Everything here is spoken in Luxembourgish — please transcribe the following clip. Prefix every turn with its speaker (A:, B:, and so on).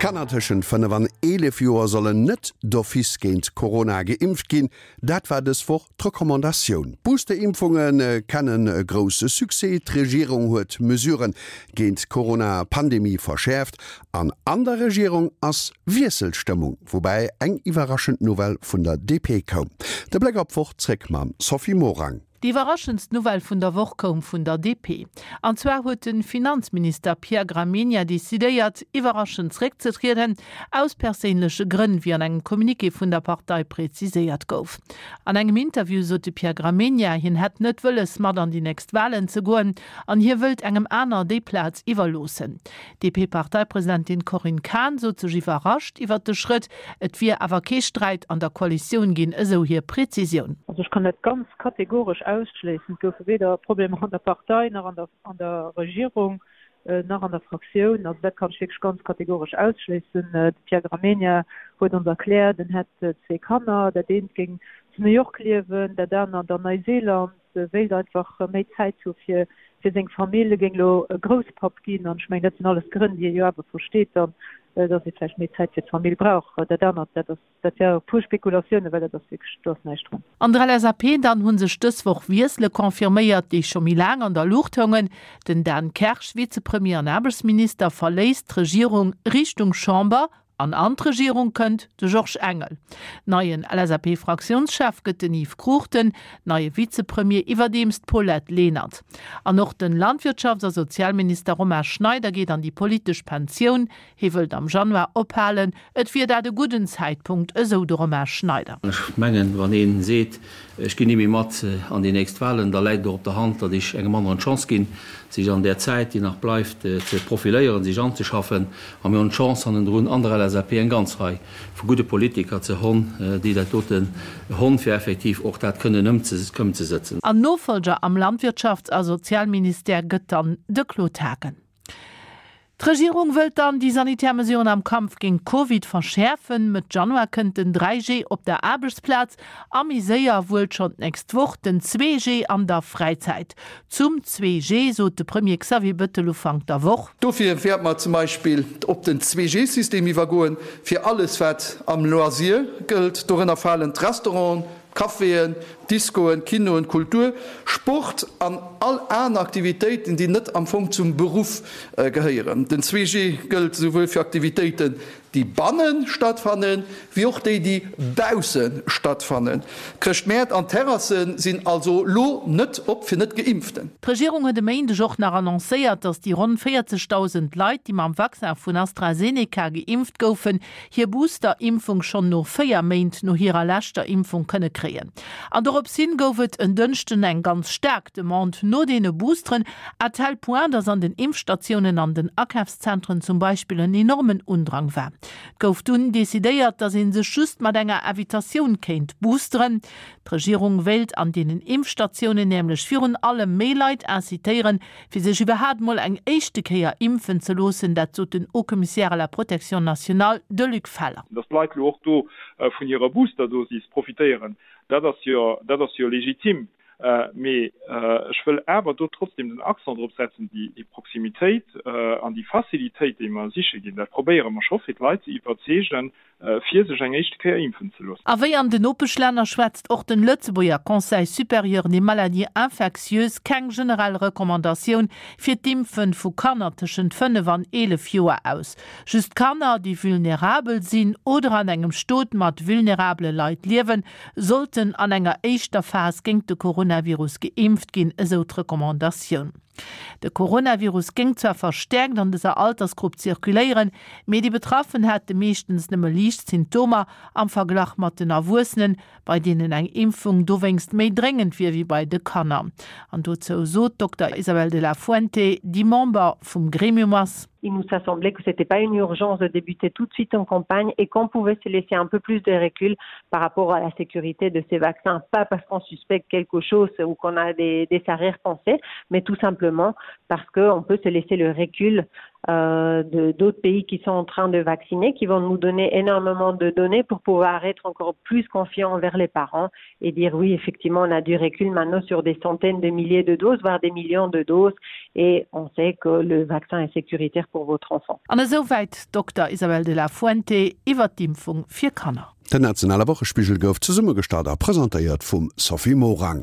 A: Kanner tëschent 5 an 11 Joer sollen net d'office géint Corona geimpft ginn. Dat war dës Woch d'Recommandatioun. D'Booster-Impfunge kennen e grousse Succès. D'Regierung huet d'Mesurë géint d'Corona-Pandemie verschäerft an an der Regierung ass Wiesselstëmmung, woubäi eng iwwerraschend Nouvelle vun der DP koum. De Bléck op d'Woch zréck mam Sophie Morang.
B: Déi iwwerraschendst Nouvelle vun der Woch koum vun der DP. An zwar huet de Finanzminister Pierre Gramegna decidéiert, iwwerraschend zréckzetrieden, aus perséinleche Grënn, wéi an engem Communiqué vun der Partei preziséiert gouf. An engem Interview sot de Pierre Gramegna, hien hätt net wëlles, mat an déi nächst Walen ze goen an hie wëllt engem aner déi Plaz iwwerloossen. D'DP-Parteipresidentin Corinne Cahen sot sech iwwerrascht iwwert de Schrëtt. Et wier awer kee Sträit an der Koalitioun ginn, esou hir Prezisioun.
C: Also ech kann dat ganz kategoresch ausschléissen. Et goufe weder Problemer an der Partei, nach an der Regierung, nach an der Fraktioun. Also dat kann ech wierklech ganz kategoresch ausschléissen. De Pierre Gramegna huet ons erkläert, en hätt zwee Kanner, dat eent géing zu New York liewen, dat anert an Neuseeland. wéilt einfach méi Zäit hu fir fir seng Famill, e géing elo Grousspapp ginn an ech mengen, dat sinn alles Grënn, déi ee jo awer versteet dann, datt ee vläicht méi Zäit fir d'Famill brauch. Dat anert, dat ass, dat wär pur Spekulatiounen, well dat ass wierklech, do ass näischt drun.
B: An der LSAP dann hu sech dës Woch Wiessele confirméiert, déi scho méi laang an der Luucht houngen. Den Dan Kersch, Vizepremier an Aarbechtsminister, verléisst d'Regierung Richtung Chamber An an d'Regierung kënnt de Georges Engel. Neien LSAP-Fraktiounschef gëtt den Yves Cruchten, neie Vizepremier iwwerdeems d'Paulette Lenert. An och den Landwirtschafts a Sozialminister Romain Schneider geet an déi politesch Pensioun. Hie wëllt am Januar ophalen. Et wier dat e gudden Zäitpunkt, esou de Romain Schneider.
D: Ech mengen, wann ee seet, ech ginn ni méi mat an déi nächst Wahlen, da läit et och op der Hand, datt ech engem aneren d'Chance ginn, sech an där Zäit, déi nach bleift, ze profiléieren, sech anzeschaffen. A mir hunn d'Chance hannendrun an der LSAP eng ganz Rei vu gudde Politiker ze honn, déi dat doten honn, fir effektiv och dat kënnen ëmzesëtzen.
B: An Nofolger am Landwirtschafts a Sozialministère gëtt dann de Claude Haagen. D'Regierung wëllt dann déi sanitär Mesuren am Kampf géint Covid verschäerfen. Mëtt Januar kënnt den 3G op der Aarbechtsplaz a méi séier, wuel schonn d'nächst Woch, den 2G an der Fräizäit. Zum 2G sot de Premier Xavier Bettel Ufank der Woch.
E: Dofir wäerte mer zum Beispill op den 2G-System iwwergoen, fir alles wat am Loisir gëllt. Dorënner falen d'Restauranten, d'Caféen, d'Discoen, d'Kinoen, d'Kultur, Sport an all aner Aktivitéiten, déi net am Fong zum Beruff gehéieren. Den 2G gëllt esouwuel fir Aktivitéiten, déi banne stattfannen, wéi och déi, déi bausse stattfannen. D'Chrëschtmäert an d'Terrasse sinn also lo net op fir Net-Geimpften.
B: D'Regierung huet e Méindeg och nach annoncéiert, datt déi ronn 40.000 Leit, déi mam Vaccin vun AstraZeneca geimpft goufen, hir Booster-Impfung schonn no 4 Méint no hirer leschter Impfung kënne kréien. An dorops hin gouf et en Dënschden eng ganz staark Demande no deene Boosteren, à tel point, datt an den Impfstatiounen an den Akafszentren zum Beispill en enormen Undrang war. Et gouf dunn decidéiert, datt ee sech just mat enger Invitatioun kéint boosteren. D'Regierung wéilt an deenen Impfstatiounen nämlech virun allem méi Leit incitéieren, fir sech iwwerhaapt mol eng éischte Kéier impfen ze loossen. Dat sot den Haut-Commissaire à la protection nationale, de Luc Feller.
F: Datt d'Leit elo och do vun hirer Boosterdosis profitéieren, dat ass jo, dat ass jo legitim. Mee ech wëll awer do trotzdem den Accent drop setzen, déi Proximitéit an déi Facilitéit, déi mer siche ginn, dat probéiere mer scho fir d'Leit ze iwwerzeegen, fir sech eng éischte Kéier impfen ze loossen.
B: A wéi an den Nopeschlänner schwätzt och den Lëtzebuerger Conseil supérieur des maladies infectieuses keng generell Recommandatioun fir d'Impfen vu Kanner tëschent 5 an 11 Joer aus. Just Kanner, déi vulnerabel sinn oder an engem Stot mat vulnerabele Leit liewen, sollten an enger éischter Phas géingt de Coronavirus geimpft ginn, esou d'Recommandatioun. De Coronavirus géing zwar verstäerkt an dëser Altersgrupp zirkuléieren, mee déi Betraffen hätte meeschtens nëmme liicht Symptomer am Verglach mat den Erwuessenen, bei deenen eng Impfung dowéinst méi dréngend wier wéi bei de Kanner. An dozou sot d'Dokter Isabel de la Fuente, déi Member vum Gremium ass.
G: Il nous a semblé que c'était pas une urgence de débuter tout de suite en campagne et qu'on pouvait se laisser un peu plus de recul par rapport à la sécurité de ces vaccins, pas parce qu'on suspecte quelque chose ou qu'on a des, des arrière-pensées, mais tout simplement. simplement parce qu'on peut se laisser le recul euh, d'autres pays qui sont en train de vacciner, qui vont nous donner énormément de données pour pouvoir être encore plus confiant envers les parents et dire oui, effectivement, on a du recul maintenant sur des centaines de milliers de doses, voire des millions de doses et on sait que le vaccin est sécuritaire pour votre enfant.
B: An esouwäit d'Dokter Isabel de la Fuente iwwer d'Impfung fir Kanner.
A: Den nationale Wochespigel gouf zesummegestallt a presentéiert vum Sophie Morang.